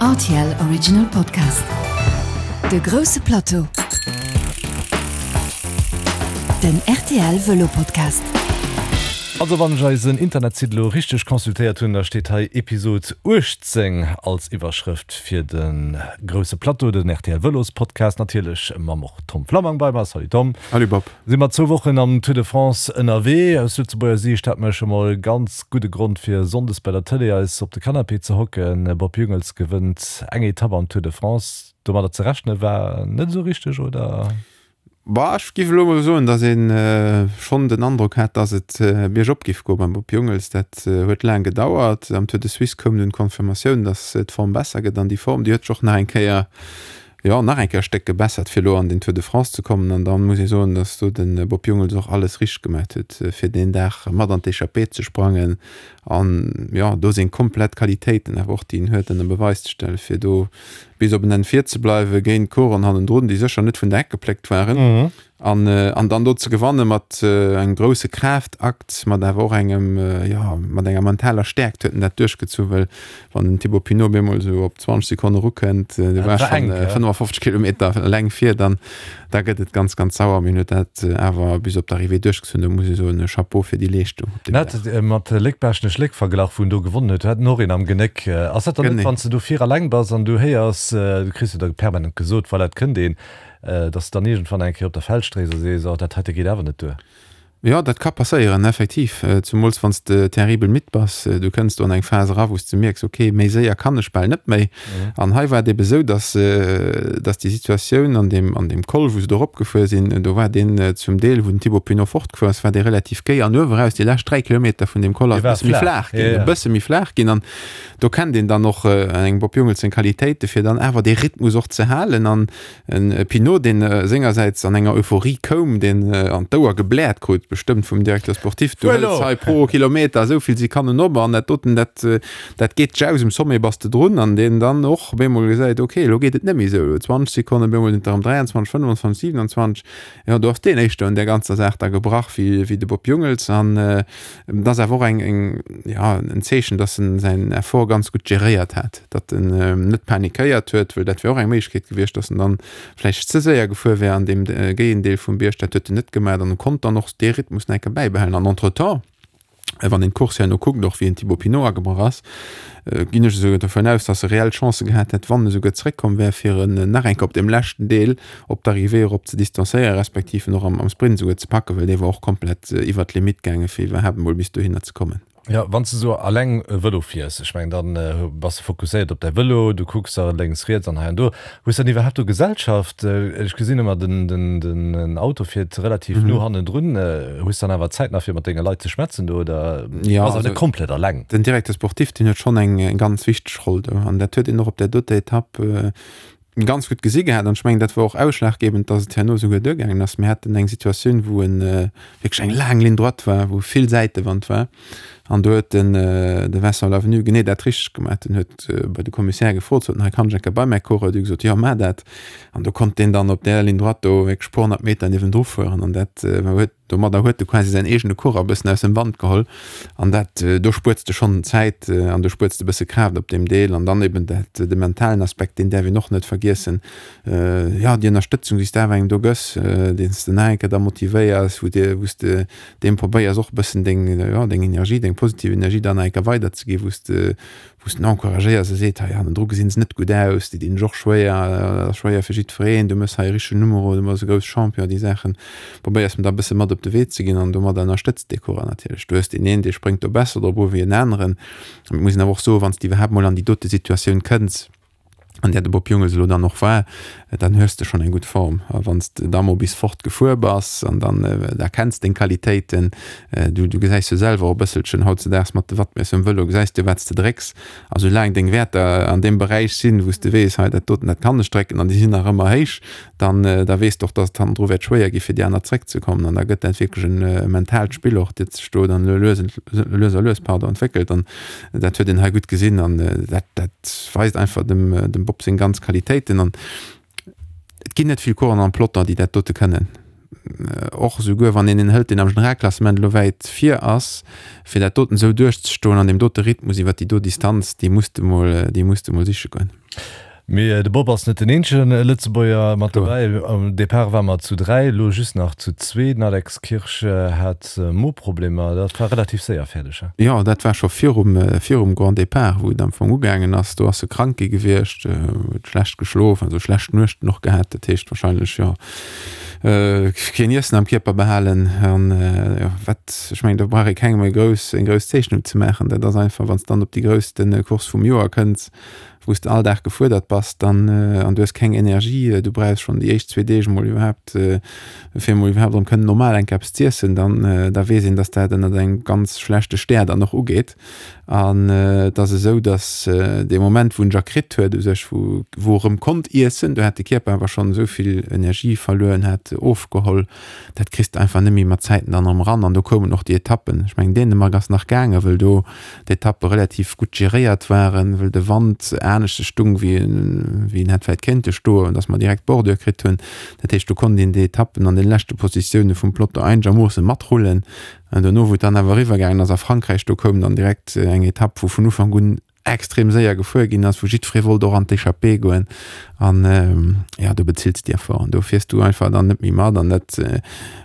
Rtl Original Podcast. De grousse Plateau. Den rtl Vëlo Podcast. Also wann ech eisen Internetsite elo richteg consultéiert hunn, da steet hei Episod 18 als Iwwerschrëft fir de grousse Plateau, den rtl Vëlos Podcast, natierlech mam och Tom Flammang bei mer. Salut Tom. Salut Bob. Si mer zwou Wochen am Tour de France ënnerwee. Aus Lëtzebuerger Siicht hat mer scho mol ganz gudde Grond fir Sonndes bei der Tëlee eis op de Canapé ze hocken. Bob Jungels gewënnt eng Etapp am Tour de France. Domadder ze rechne war net esou richteg, oder? Bah, ech giff elo mol soen, datt ee schonn den Androck hat, datt et biergop giff goe beim Bob Jungels. Dat huet laang gedauert. Am Tour de Suisse koum dunn d'Confirmatioun, datt d'Form besser gëtt an déi Form, déi huet sech och nach eng Kéier jo, nach eng Kéier e Stéck gebessert, fir elo an den Tour de France ze kommen. An da muss ee soen, datt do de Bob Jungels och alles richteg gemaat huet, fir deen Dag mat an d'Echappée ze sprangen an, jo, do seng komplett Qualitéiten awer och, déi en huet, ënner Beweis ze stellen, fir do bis op en Enn vir ze bleiwen géint Coureuren hannendrun, déi sécher net vun der Heck gepléckt waren. An, an dann do ze gewanne mat engem grousse Kraaftakt, mat awer och engem, jo, mat enger mentaler Stäerkt huet en dat duerchgezu, well wann den Thibaut Pinot op eemol esou op 20 Sekonne erukënnt, du Dat waars war schonn enk, ja. 55 Kilometer eleng vir, dann, da gëtt et ganz, ganz sauer. Mee en huet dat awer bis op d'Arrivée duerchgezunn. Do muss ee soen, Chapeau fir déi Leeschtung op deem Dag. En hat mat Léck-Baaschtnech Léck verglach, wou en do gewonnen huet. Do hat en och een am Genéck. Ass dat dann net, Genee. wann s de do vir eleng bass an du héiers, du kriss jo da permanent gesot, voilà, et kënnt een, Dass de dann iergendwann eng Kéier op der Feldstréis a sees, oh, dat heite geet awer net duer. Jo, dat ka passéieren, effektiv. Zumools wann s de terribel midd bass. Du kënns do an eng Phas era, wou s de mierks, ok, méi séier kann ech bal net méi. An hei war et ebe sou, dass, dass déi Situatioun an deem, an deem Col, wou se do eropgefuer sinn, do war deen zum Deel, wou den Thibaut Pinot fortgefuer ass, war dee relativ géi an uewe raus, déi lescht 3 Kilometer vun deem Col ass e bësse méi flaach ginn, e bësse méi flaach ginn. An do kennt een dann och engem Bob Jungels seng Qualitéite fir dann awer dee Rhythmus och ze halen. An En Pinot, deen sengersäits an enger Euphorie koum, deen an d'Ouer gebläert krut, bestëmmt vum Directeur sportif, du hëls hei pro Kilometer esou vill Sekonnen op an dat doten, dat, dat geet dech aus, um Sommet bass de drun, an deen dann och op eemol gesäit, ok, elo geet et net méi esou, elo 20 Sekonnen, op eemol sinn et der erëm 23, 25, 27, jo, do ass deen éischter un där ganzer Saach da gebrach wéi, wéi de Bob Jungels. An et ass awer och eng, eng, jo, en Zeechen, dass en säin Effort ganz gutt geréiert hat. datt en net panikéiert huet, well dat wär och eng Méiglechkeet gewiescht, datt en dann vläicht ze séier gefuer wär an deem géien Deel vum Bierg. Dat huet en net gemaach an en konnt dann och dee Rhythmus nach eng Kéier bäibehalen. An entretemps, wann een d'Course herno kuckt, och wéi en Thibaut Pinot agebrach ass, ginn ech esouguer dovun aus, datt e reell Chancë gehat hätt, wann e souguer zeréckkomm wär, fir en nach eng Kéier op deem leschten Deel op d'Arrivée erop ze distanzéieren, respektiv en och am Sprint esouguer ze packen, well dee war och komplett iwwert d'Limitt gaangen, fir iwwerhaapt emol bis dohinner ze kommen. Jo, wann s de sou alleng Vëlo fiers, ech mengen dann bass de fokusséiert op däi Vëlo, du kucks da lénks, riets an hei an do. Hues dann iwwerhaapt do Gesellschaft? Ech gesinn ëmmer den den Auto fiert relativ no hannendrun. Hues dann awer Zäit nach fir mat denge Leit ze schwätzen do oder Jo, bass awer also net komplett alleng? den Directeur sportif, deen huet schonn eng ganz wichteg Roll do an dat huet een och op där doter Etapp ganz gutt gesi gehat an ech mengen dat war och ausschlaggebend, datt et herno esouguer duergaangen ass. Mir haten eng Situatioun, wou en wierklech eng laang Ligne droite war, wou vill Säitewand war an do huet den de Vincent Lavenu genee dat richteg gemaach. Den huet bei de Commissaire gefrot, sot en, hei kann ech eng Kéier bei mäi Coureur? Déi hu gesot, jo maach dat. An do konnt deen dann op där Ligne droite do wierklech puer 100 Meter niewendru fueren an dat huet Domadder huet e quasi säin eegene Coureur e bëssen aus dem Wand geholl an dat, do spuerts de schonn Zäit an do spuerts de e bësse Kraaft op deem Deel. An dann eben dat, de mentalen Aspekt, deen däerf een och net vergiessen. Jo, déi Ënnerstëtzung, déi s de awer engem do gëss, deen s de nach eng Kéier da motivéiers, wou de, wou s de deem probéiers och e bëssen deng, jo, deng Energie, deng positiv Energie dann nach eng Kéier weiderzeginn, wou s de, wou s den encouragéiers a seet, hei hannendru gesinn se net gutt aus, déi dinn sech och schwéier, dat ass schwéier fir jiddwereen, du méchs hei e richtegen Numero, du bass e grousse Champion, déi Saachen probéiers em da e bësse mat op de Wee ze ginn an domadder ënnerstëtzt dee Coureur natierlech. Du hues deen een, dee spréngt do besser drop u wéi en aneren. Et muss een awer och soen, wann s de iwwerhaapt mol an déi dote Situatioun kënns, an där de Bob Jungels elo dann och war, dann hues de schonn eng gutt Form. A wann s de da mol bis fort gefuer bass an dann da kenns deng Qualitéiten, du du gesäis jo selwer och e bësselchen hautzedaags mat de Wattmiesser um Vëlo, gesäis de wat s de drécks. A soulaang deng Wäerter an deem Beräich sinn, wou s de weess, hei dat doten, dat kann ech drécken an déi sinn nach ëmmer héich, dann da weess de och, dass et hannendru wäert schwéier gi fir déi aner zréckzekommen. An da gëtt dat wierklech e mentaalt Spill och, dat sech do dann lues lues a lues, pardon, entwéckelt. An Dat huet een hei gutt gesinn an dat, dat weist einfach dem, dem Bob seng ganz Qualitéiten. An et ginn net vill Coureuren am Peloton, déi dat dote kënnen. Och esouguer wann een een hëlt, deen am Generalklassement elo wäit vir ass, fir dat doten esou duerchzestoen an deem dote Rhythmus iwwert déi do Distanz, déi muss de mol, déi muss de mol siche goen. Mee de Bob ass net den eenzege Lëtzebuerger mat dobäi. Am Depart ware mer zu 3, elo just nach zu zwee. Den Alex Kirsch hat Moproblemer. Dat war relativ séier fäerdeg, he? Jo, dat war scho virum, virum Grand Départ, wou et am Fong ugaangen ass. Do ass e krank gi gewiescht, huet schlecht geschlof, also schlecht Nuechten och gehat. Dat heescht wahrscheinlech, jo, keen Iessen am Kierper behalen. An, jo, wat, ech mengen, do brauch ee kengem eng grouss, eng grouss Zeechnung ze maachen. Dat ass einfach, wann s de dann op déi grousste Course vum Joer kënns, wou s de all Dag gefuerdert bass, dann, an du hues keng Energie, du brauchs schonn déi éischt zwee Deeg emol iwwerhaapt, fir emol iwwerhaapt erëm kënnen normal eng Kéier eppes z'iessen, dann, da weess een, dass dat ënnert engem ganz schlechte Stär dann och ugeet. An et ass esou, dass dee Moment, wou en ja kritt huet u sech, wou, wou e rëm konnt iessen, do hat de Kierper awer schonn esou vill Energie verluer, hat ofgeholl, dat kriss de einfach net méi mat Zäiten dann erëm eran. An do koumen och déi Etappen, ech mengen Dänemark ass nach gaangen, wëll do d'Etappe relativ gutt geréiert waren, wëll de Wand aneschters stung wéi en hätt vläit kéinte stoen, dass mer direkt d'Bordure kritt hunn. Dat heescht, do konnt een déi Etappen an den leschte Positioune vum Peloton einegermoosse matrullen. An dono, wou et dann awer eriwwer gaangen ass a Frankräich, do koum dann direkt eng Etapp, wou vun Ufank un extrem séier gefuer ginn ass, wou jiddweree wollt och an d'Echappée goen. An jo, do bezills de Effort an do fiers du einfach dann net méi mat. An dat,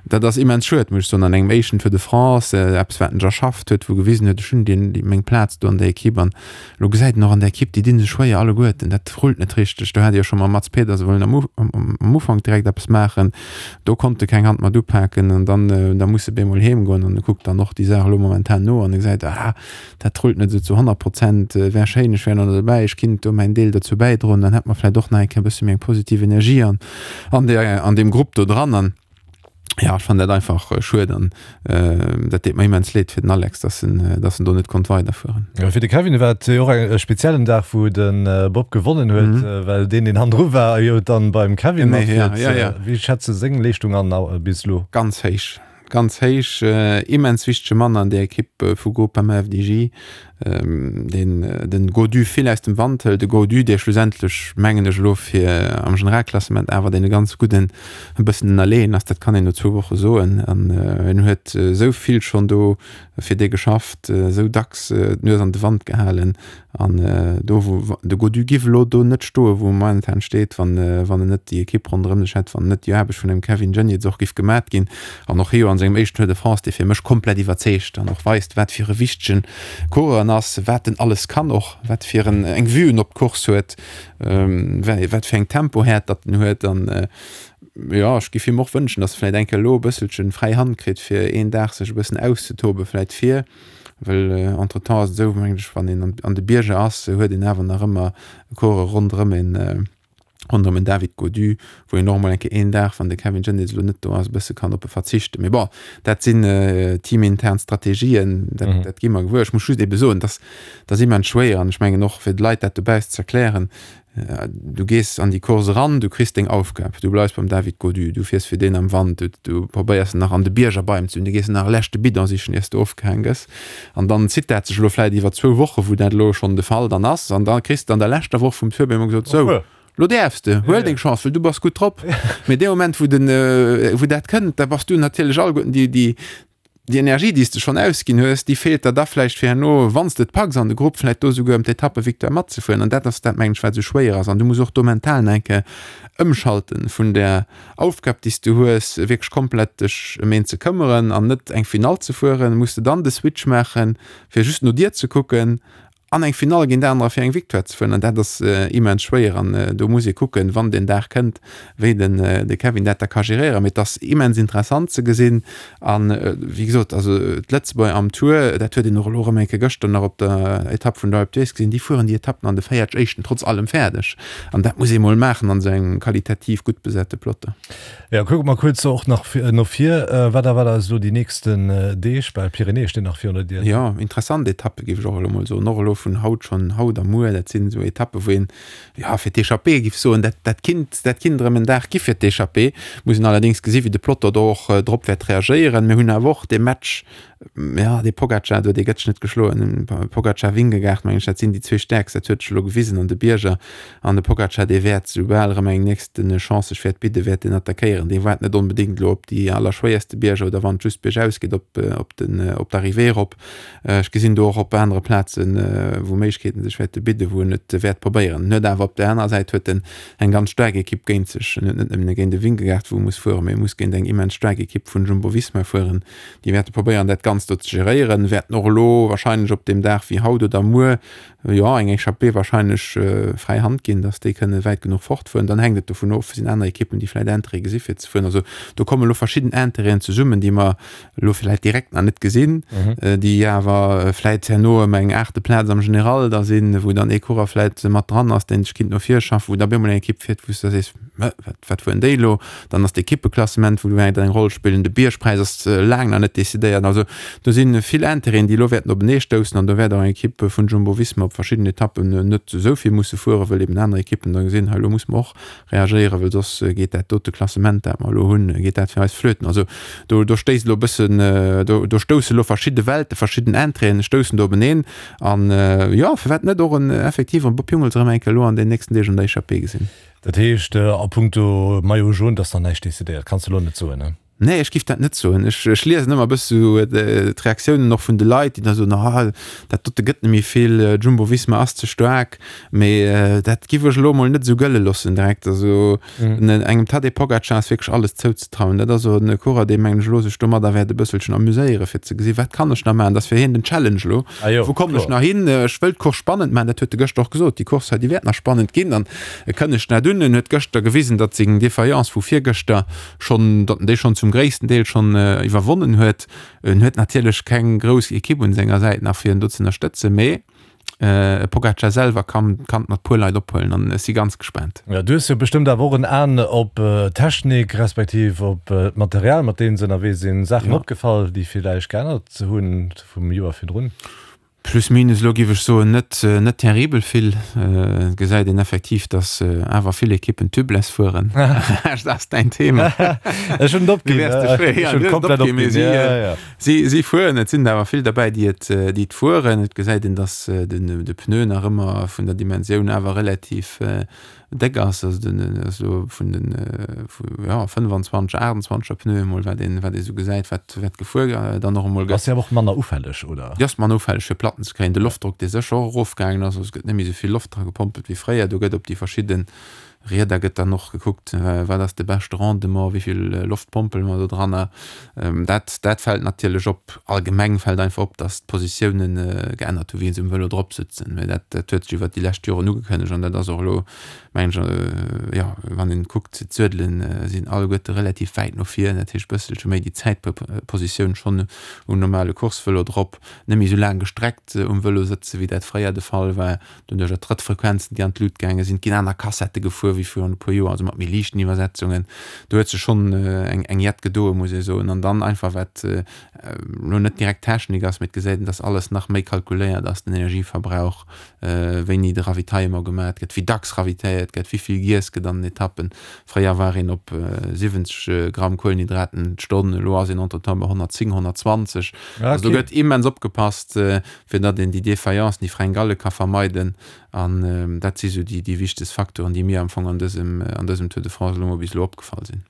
dat ass immens schued, muss ech soen, an engem éischten Tour de France, eppes wat en erschafft huet, wou gewisen huet, ech hunn deen, déi, meng Plaz do an der Ekipp. An elo gesäit en och an der Ekipp, déi di sech schwéier alleguerten, dat rullt net richteg. Do hat ee jo scho mam Mads Pedersen wollen am am Ufank direkt eppes maachen, do konnt e keng Hand mat upaken an dann, da muss e bemol heem goen an e kuckt dann och déi Saach elo momentan no an e gesäit, ah, Dat rullt net esou zu 100 Prozent. Wär schéin, ech wär nach dobäi, ech kinnt do mäin Deel dozou bäidroen, dann hätt mer vläit och nach eng Kéier e bësse méi eng positiv Energie an an där an deem Grupp do dran. An jo, ech fannen dat einfach schued an dat deet mer immens leed fir den Alex, dass en dass en do net konnt weiderfueren. Jo, fir de Kevin war et jo och e speziellen Dag, wou de Bob gewonnen huet, well deen, deen hannendru war, jo dann beim Kevin matfiert. Wéi schätz de seng Leeschtung an bis elo? Ganz héich. Ganz héich, immens wichtege Mann an der Ekipp vu Groupama FDJ, deen den Gaudu vill aus dem Wand hëlt. De Gaudu, dee schlussendlech, mengen ech elo, fir am Generalklassement awer dee ganz gudden e bëssen ënnerleeën ass, dat kann een no zwou Woche soen. An en huet esou vill schonn do fir dee geschafft, esou dacks d'Nues an de Wand gehalen. An do wou de Gaudu giff elo do net stoen, wou e momentan steet, wann wann en net déi Ekipp ronderëm sech hätt, wann net déi Aarbecht vun dem Kevin Geniets och giff gemat ginn. An och hie jo an sengem éischten Tour de France, dee fir mech komplett iwwerzeegt an och weist, wat fir e wichtegen Coureur en ass, wat en alles kann och, wat fir en eng Vue en op d'Course huet, wat fir eng Tempohäert datt en huet. An jo, ech giff him och wënschen, datt e vläit eng Kéier elo e bësselchen fräi Hand kritt, fir een Dag sech e bëssen auszetoben, vläit fir Well entretemps ass et esou, mengen ech, wann een an de Bierger ass, huet een awer nach ëmmer Coureuren ronderëm een, ronderëm en David Gaudu, wou een och emol eng Kéier een Dag, wann de Kevin Geniets elo net do ass, e bësse kann op e verzichten. Mee bon, dat sinn teamintern Strategien, dat, dat gi mer gewuer. Ech muss just ebe soen, dass dat ass immens schwéier an ech mengen och fir de Leit dat dobaussen ze erklären, Du gees an déi Course eran, du kriss deng Aufgab, du bleifs beim David Gaudu, du fiers fir deen am Wand, du, du probéiers en nach an de Bierger bei em ze hunn, du gees en nach e leschte Bidon sichen, iers du ofgehaang gëss. An dann zitt dat sech elo vläit iwwer zwou Woche, wou dat elo schonn de Fall dann ass. An da kriss de an der leschter Woch vum Tour op eemol gesot, Sou, lo däerfs de, huel deng Chance, well du bass gutt drop. Mee dee Moment, wou den, wou dat kënnt, da bass du natierlech alleguerten déi, déi, Déi Energie, déi s de schonn ausginn hues, déi feelt der da vläicht fir herno, wann s de et packs an de Grupp, vläicht do souguer ëm d'Etappevictoire matzefueren. An dat ass dat, mengen ech, wat esou schwéier ass. An du muss och do mental nach eng Kéier ëmschalten vun där Aufgab, déi s du hues, wierklech komplett dech ëm een ze këmmeren an net eng Finall ze fueren. Muss de dann de Switch maachen, fir just no dir ze kucken an eng Finall géint anerer fir eng Victoire ze fueren an dat ass immens schwéier an do muss ee kucken, wann deen Dag kënnt, wéi den de Kevin dat da ka geréieren. Mee et ass immens interessant ze gesinn an wéi gesot, also d'Lëtzebuerger am Tour, dat huet een och elo erëm eng Kéier gëschter nach op der Etapp vun der Alpe d'Huez gesinn, déi fueren déi Etappen an de 40 éischten trotz allem fäerdeg an dat muss ee mol maachen an esou engem qualitativ gutt besate Peloton. Jo, kucke mer kuerz och nach no vir. Wat erwaart eis elo déi nächsten Deeg? Well d'Pyrenäe stinn nach virun der Dier. Jo, interessant Etappe géif ech och elo mol soen. Och elo vun haut schonn, haut a muer, dat sinn esou Etappe wou een, jo, fir d'Echappée géif soen, dat, dat kinnt, dat kinnt erëm en Dag gi fir d'Echappée. Muss een allerdéngs gesi wéi de Peloton do och drop wäert reagéieren. Mir hunn awer och dee Match. Jo, dee Pogacar do, dee gëtt sech net geschloen. Pogacar, Vingegaard, mengen ech, dat sinn déi zwee Stäerkst, dat huet sech elo gewisen an de Bierger. An de Pogacar, dee wäert, soubal erëm eng nächste Chance sech wäert bidden, wäert deen attackéieren. Dee waart net onbedéngt elo op déi allerschwéierste Bierger oder wann et just biergaus geet op, op den, op d'Arrivée erop. Ech gesinn do och op anere Plazen, wou Méiglechkeeten sech wäerte bidden, wou en et wäert probéieren. En huet awer op där anerer Säit huet en eng ganz staark Ekipp géint sech. En huet net nëmmen géint e Vingegaard, wou e muss fueren, mee e muss géint eng immens staark Ekipp vun Jumbo-Visma fueren. Déi wäerte probéieren, dat Ganzt do ze geréieren, wäerten och elo wahrscheinlech op deem Dag wéi haut oder muer, jo, eng Echappée wahrscheinlech fräi Hand ginn, datt déi kënne wäit genuch fortfueren. Dann hänkt et dovun of, sinn aner Ekippen, déi vläicht Intérêt gesi fir ze fueren. Also do komme elo verschidden Intérêten zesummen, déi mer elo vläicht direkt nach net gesinn, déi awer vläicht herno ëm eng aachte Plaz am General da sinn, wou dann ee Coureur vläicht mat dran ass, deen sech kinnt no vir schaffen, wou da op eemol eng Ekipp fiert, wou s de da sees, Wat, wat fueren déi elo? Dann ass d'Ekippeklassement, wou wäert eng Roll spillen. De Biergpräis ass laang nach net decidéiert. Also do si vill Intérêten, déi elo wäerten openee stoussen. An do wäert och eng Ekipp vun Jumbo-Visma op verschidden Etappen net esou vill musse fueren, wëll eben aner Ekippen da gesinn, hei elo musse mer och reagéieren, wëll soss geet dat dote Klassement, dat mer elo hunn, geet dat fir eis flöten. Also do, do stéisst elo e bëssen, do, do stousse elo verschidde Welte, verschidden Intérêten stoussen do openeen. An jo, firwat net och en effektiv en Bob Jungels erëm eng Kéier elo an den nächsten Deeg an der Echappée gesinn. Dat heescht, a puncto Maillot jaune, et ass nach näischt decidéiert, kanns de elo net soen, ne? Nee, ech giff dat net soen. Ech, ech liesen ëmmer e bësse sou d'Reaktiounen och vun de Leit, déi da soen, ah, dat dote gëtt net méi vill, Jumbo-Visma ass ze staark. Mee dat giff ech elo emol net esou gëlle loossen direkt. Also engem Tadej Pogacar ass wierklech alles zouzetrauen. Dat ass och e Coureur, dee mengen ech elo sech domadder wäert e bësselchen amuséiere fir ze gesi wat kann ech nach maachen. Dat ass fir hien den Challenge elo. Ah jo, Wou kommen ech kloer. nach hin? Ech wëll d'Course spannend maachen, dat huet e gëschter och gesot, déi Course hei, déi wäert nach spannend ginn. An e kënnegt net un. En huet gëschter gewisen, datt seng Defaillance vu virgëschter schonn, datt en déi schonn zum gréissten Deel schonn iwwerwonnen huet. En huet natierlech keng grouss Ekipp un senger Säit nach fir en do ze ënnerstëtzen, mee e Pogacar selwer kann kann et mat puer Leit ophuelen an ech si ganz gespaant. Jo, du hues jo bestëmmt awer och en Aen op d'Technik, respektiv op d'Material, mat deem se ënnerwee sinn. Saachen opgefall, déi villäicht geännert hunn vum Joer virdrun? Plus minus elo giff ech soen net net terribel vill. Et gesäit een effektiv dass awer vill Ekippen tubeless fueren. Dat ass däin Thema. Ech hunn et opginn. Ech hunn et komplett opginn. Si si si fueren. Et sinn der awer vill derbäi déi et déi et fueren. Et gesäit een dass den de Pneu nach ëmmer vun der Dimensioun awer relativ déck ass, also den ass elo vun den vu jo 25, 28er Pneue emol wat een wat ee sou gesäit wat wat gefuer dann och emol gëtt. Ass jo awer och manner ufälleg, oder? Déi ass manner ufälleg fir Platten ze kréien. De Loftdrock dee sécher och erofgaangen ass, also et gëtt net méi sou vill Loft dra gepompelt wéi fréier. Do gëtt op déi verschidde Rieder gëtt dann och gekuckt, wat ass de beschte Rendement, wéi vill Loft pompele mer do dranner. Dat dat fält natierlech op. Allgemeng fält einfach op, datt d'Positiounen geännert hu wéi se um Vëlo drop sëtzen. Mä dat dat huet sech iwwert déi lescht Joren ugekënnegt an dat ass och elo, mengen ech, jo, wann een kuckt, d'Suedelen sinn alleguerte relativ wäit no vir, dat heescht bësselche méi déi Zäitpositioun schonn um normale Coursevëlo drop, net méi esou laang gestreckt um Vëlo sëtze wéi dat fréier de Fall war. Doduercher d'Trëttfrequenzen, déi an d'Lut gaange sinn, et ginn aner Kassette gefuer wéi virun e puer Joer, also mat méi liichten Iwwersetzungen. Do huet sech schonn eng eng Jett gedoe muss ee soen. An dann einfach wat elo net direkt Technik ass, mee et gesäit een, datt alles nach méi kalkuléiert ass, den Energieverbrauch, wéini de Ravitaillement gemat gëtt, wéi dacks ravitailléiert gëtt, wéi vill giess gëtt an den Etappen. Fréier war een op 70 Gramm Kuelenhydraten d'Stonn, elo ass een entretemps bei 110, 120. Also do gëtt immens opgepasst. fir datt een déi Défaillances, déi Fringalle ka vermeiden. An dat si sou déi, déi wichtegst Facteuren, déi mir am Fong an dësem, an dësem Tour de France elo mol bis elo opgefall sinn.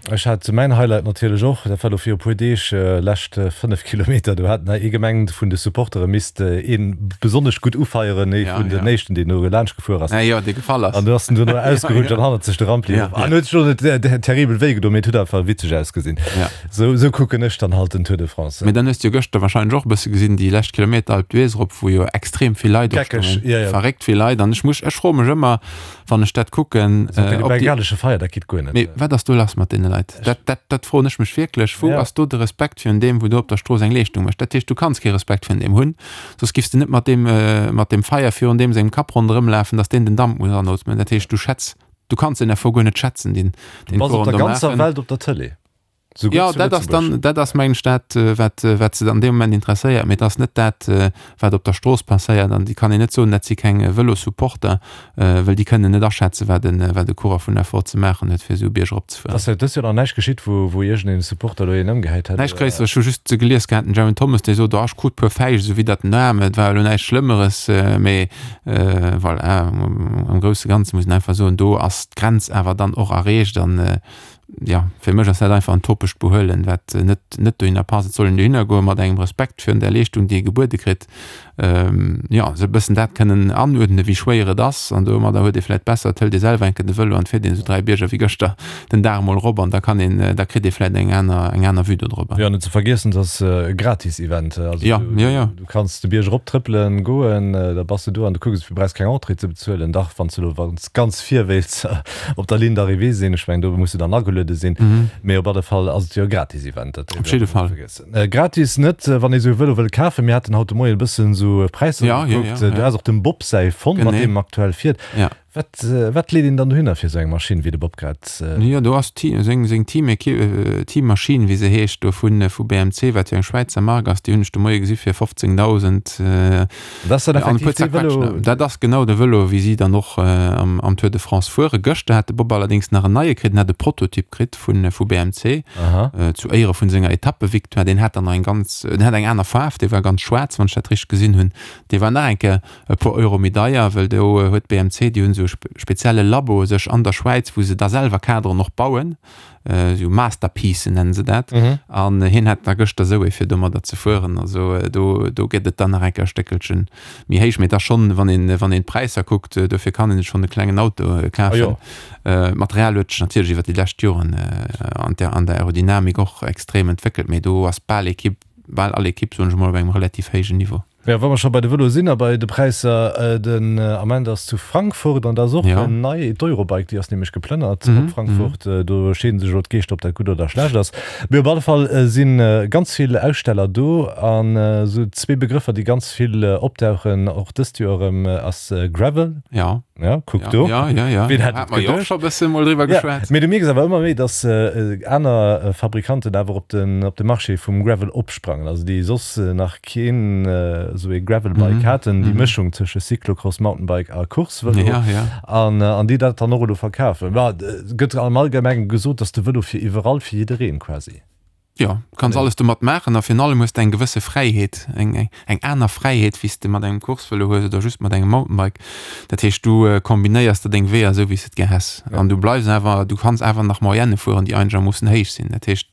Ech hat mäin Highlight natierlech och, dat war elo viru puer Deeg, lescht 5 Kilometer, do hat nach ee gemengt, vun de Supportere misst ee besonnesch gutt ufeieren, ee vun den éischten, deen do laanscht gefuer ass. Jo, dee gefall ass. An du ass en duerno ausgerutscht an hannert sech de Rampli erof. An huet sech elo net terribel wéi gedoen, mee et huet einfach witzeg ausgesinn. Sou, sou kucken ech dann halt den Tour de France. Mee dann hues de jo gëschter wahrscheinlech och e bësse gesinn, déi lescht Kilometer Alpe d'Huez erop, wou jo extrem vill Leit Geckeg, opstoungen. ja, ja. Verréckt vill Leit. An ech muss, ech froe mech ëmmer, wann ech dat kucken, Also äh, ob déi. Bengalesche Feier, dat geet guer net. Mee wat ass do lass mat deene Leit? Dat, dat, dat froen ech mech wierklech. Wou Ja. ass do de Respekt virun deem, wou do op der Strooss eng Leeschtung mécht? Dat heescht, du kanns kee Respekt virun deem hunn, soss giffs de net mat deem, mat deem Feier virun deem sengem Kapp ronderëm lafen, datt deen den Damp muss anootmen. Dat heescht, du schätz, du kanns den Effort guer net schätzen, deen Du deen bass op d'Coureuren der do ganzer maachen. Welt op der Tëlee. Souguer Jo, zu dat ass dann, Lëtzebuerg. dat ass mengen ech dat, wat, wat se an deem Moment interesséiert, mee et ass net dat, wat op der Strooss passéiert. An déi kann een net soen, dat si keng Vëlossupporter, well déi kënnen net aschätzen, wat e, wat e Coureur vun Effort ze maachen huet, fir esou e Bierg eropzefueren. Ass dëst Joer nach näischt geschitt, wou, wou iergendeen Supporter elo een ëmgehäit hätt, Näischt oder? Gréisseres. Ech hu just gelies gehat, den Geraint Thomas, dee sot, oh, ech krut puer Fäischt esou widdert den Aarm, et war elo näischt Schlëmmeres, mee voilà, am grousse Ganze muss een einfach soen, do ass d'Grenz awer dann och erreecht an, jo, fir mech ass dat einfach en topegt Behuelen, wat net, net dohinner passt. Et soll een dohinner goe mat engem Respekt virun där Leeschtung, déi ee gebuede kritt, jo, esou e bëssen dat kënnen anuerdnen, wéi schwéier et ass. An domadder huet ee vläicht besser, et hëlt ee selwer eng Kéier de Vëlo an et fiert een esou 3 Bierger wéi gëschter den Dag emol erop an da kann een, da kritt ee vläicht eng aner, eng aner Vue dodrobber. Jo, net ze vergiessen, et ass e gratis Event. Also Jo, du, jo, jo. du kanns de Bierg eroptrëppelen goen, da bass de do an du kucks, du brauchs keng Entrée ze bezuelen. Dach, wann s de elo, wann s ganz vir wéilts op der Ligne d'arrivée sinn. Ech mengen, do muss de dann ageluede sinn. Mee op alle Fall ass et jo e gratis Event, dat Op jidde Fall. Gratis net, wann ee sou e Vëlo wëll kafen. Mir haten haut de Moien e bëssen esou Präisser Ja, ja, gekuckt. ja, Du ja. has och dem Bob säi fonnt, mat Genee. deem aktuell fiert. Ja. Wat, wat leet een dann dohinner fir esou eng Maschinn, wéi de Bob grad. Jo, do ass d'Team, seng, seng Team-Equipe, Teammaschinn, wéi se heescht, do vu, vu BMC, wat jo eng Schwäizer Mark ass, déi hunn ech de Moie gesi fir 15.000. Dat ass dann effektiv dee Vëlo? Dat ass genau de Vëlo, wéi si dann och am Tour de France fuere. Gëschter hat de Bob allerdéngs nach en neie kritt, en hat e Prototyp kritt vu BMC zu Éiere vun senger Etappevictoire. Deen hat dann nach eng ganz, deen hat eng aner Faarf, dee war ganz schwaarz, wann ech dat richteg gesinn hunn. Dee war nach eng Kéier e puer Euro méi deier, well do huet BMC, déi hunn esou e spezielle Labo sech an der Schwäiz, wou se da selwer Kaderen och bauen. Esou Masterpiecen nennen se dat. An hien hat da gëschter esou ee fir domadder ze fueren. Also do, do gëtt et dann nach eng Kéier e Stéckelchen méi héich. Mee et ass schonn, wann een, wann een d'Präisser kuckt, dofir kann een sech schonn e klengen Auto kafen. D'Material huet sech natierlech iwwer déi lescht Joren an der, an der Aerodynamik och extrem entwéckelt, mee do ass bal Ekipp, bal all Ekipp, soen ech emol, op engem relativ héijen Niveau. Jo, wa mer scho bei de Vëloe sinn a bei de Präisser, den Ament ass zu Frankfurt an da ass och en nei, d'Eurobike, déi ass nämlech geplënnert op Frankfurt. Do scheeden sech elo d'Geeschter, ob dat gutt oder schlecht ass. Mee op alle Fall si ganz vill Aussteller do an esou zwee Begrëffer, déi ganz vill opdauchen, och dëst Joer erëm, ass Gravel. Ja. Ja, kuck do. Ja, ja, ja. Wien hätt et geduecht? Hat mer jo och scho e bësse mol driwwer geschwat. Mee du mierks awer ëmmer méi, dass aner Fabrikanten awer op den, op de Marché vum Gravel opsprangen, also déi soss nach keen esou ee Gravelbike haten, déi Mëschung tësche Cyclocross, Mountainbike a Coursevëlo, an an déi dat dann och elo verkafen. Ma et gëtt am Allgemengen gesot, dass de Vëlo fir iwwerall, fir jiddereen quasi. Jo, du kanns alles domat maachen a virun allem hues de eng gewësse Fräiheet, eng eng aner Fräiheet, wéi s de mat engem Coursevëlo hues oder just mat engem Mountainbike. Dat heescht, du kombinéiers der deng Weeër esou, wéi s de et gär häss an du bleifs awer, du kanns awer nach Moyenne fueren, déi einegermoossen héich sinn. Dat heescht,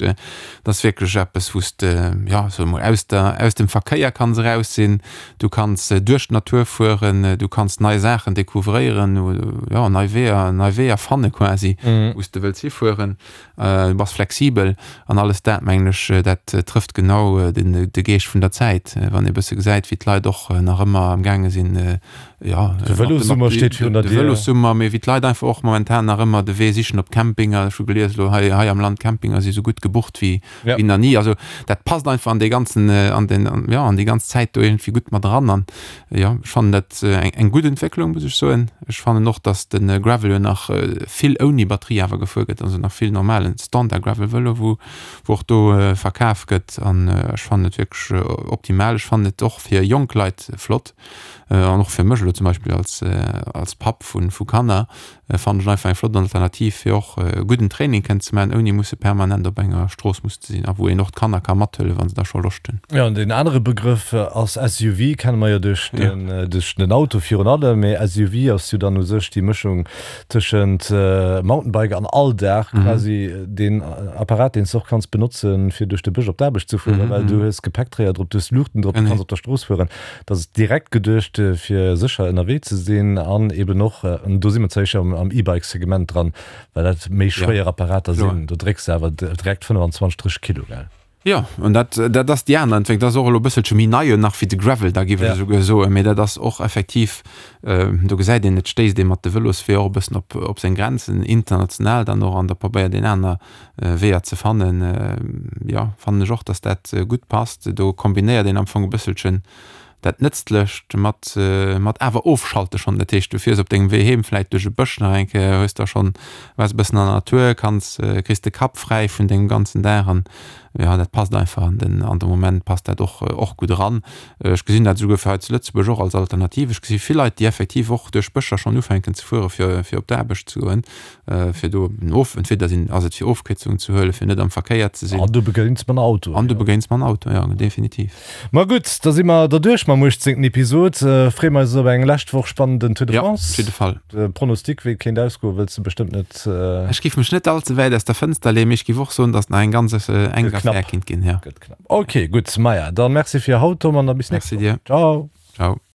Dat ass wierklech eppes, wou s de, jo, soe mol, aus der, aus dem Verkéier kanns eraus sinn. Du kanns duerch d'Natur fueren, du kanns nei Saachen découvréieren, jo, nei Weeër, nei Weeër fanne quasi, wou s de wëlls hifueren. Du bass flexibel an alles dat, mengen ech, dat trëfft genau den, de Geescht vun der Zäit. Wann ee bësse gesäit, wéi d'Leit och nach ëmmer am gaange sinn, jo, De Vëlossummer steet virun der de Dier. Vëlossummer, mee wéi d'Leit einfach och momentan nach ëmmer de Wee sichen op Campinger. Ech hu gelies elo hei, hei am Land, Campinger si sou gutt gebucht wéi, Ja. wéi nach ni. Also dat passt einfach an dee ganzen, an den, an, jo, an déi ganz Zäit do iergendwéi gutt mat eran. An jo, ech fannen dat eng, eng gutt Entwécklung, muss ech soen. Ech fannen och, datt de Gravel jo nach vill ouni Batterie awer gefuer gëtt, also nach vill normalen Standard-Gravel-Vëlo, wou, wou och do verkaf gëtt. An ech fannen et wierklech optimal. Ech fannen et och fir jonk Leit flott. An och fir mech elo zum Beispill als, als Papp vu, vu Kanner, fannen ech einfach eng flott Alternativ, fir och e gudden Training kënnen ze maachen, ouni musse permanent op enger Strooss musse ze sinn a wou een och d'Kanner ka mathuelen, wa se da scho Loscht hunn. Jo, an deen anere Begrëff ass SUV, kenne mer jo duerch den, duerch den Auto virun allem, mee SUV ass jo dann u sech déi Mëschung tëschent Mountainbike an Alldag, quasi deen Apparat, deen s de och kanns benotzen, fir duerch de Bësch op d'Aarbecht ze fueren, well du hues Gepäckträger drop, du hues Luuchten drop, du kanns op der Strooss fueren. Dat ass direkt geduecht, fir sécher ënnerwee ze sinn an eben och, an do si mer zwar éischer am E-Bike-Segment dran, well dat méi schwéier Apparater sinn, do drécks de awer direkt 25, 30 Kilo, gell? Jo, an dat, dat ass déi aner Entwécklung. Dat ass och elo e bësselche méi nei nach wéi de Gravel, da géif ech esouguer soen. Mee dat ass och effektiv, do gesäit een, et stéisst ee mat de Vëlosweeër och e bëssen op, op seng Grenzen, international dann och, an da probéiert een aner Weeër ze fannen, jo, fannen ech och, dass dat gutt passt. Do kombinéiert een am Fong e bësselchen Dat Nëtzlecht mat, mat awer ofschalte schonn. Dat heescht, du fiers op dengem Wee heem vläit duerch e Bësch nach eng Kéier, hues da schonn, waars e bëssen an der Natur, kanns, kriss de Kapp fräi vun dengem ganzen Dag an jo, dat passt einfach an den, an de Moment passt dat och, och gutt eran. Ech gesinn dat esouguer fir hei zu Lëtzebuerg och als Alternativ. Ech gesi vill Leit, déi effektiv och duerch Bëscher schonn ufänken ze fuere fir, fir op d'Aarbecht ze goen. Fir do en of, entweder sinn, ass et fir Ofkierzungen ze huelen, fir net am Verkéier ze sinn. An du begéins mam Auto. An du begéins mam Auto, jo, definitiv. Ma gutt, da si mer derduerch mam 18. Episod. Freeë mer eis op eng lescht Woch spannenden Tour de France. Jo, op jidde Fall. De Pronostic, wéi et kéint ausgoen, wëlls de bestëmmt net. Ech géif mech net all ze wäit aus der Fënster leeën, mee ech géif och soen, datt nach eng ganz enk Affär kéint ginn, jo. Gëtt knapp. Ok, gutt. Maja, da merci fir haut, Tom, an da bis nächst Woch. Merci dir. Ciao. Ciao.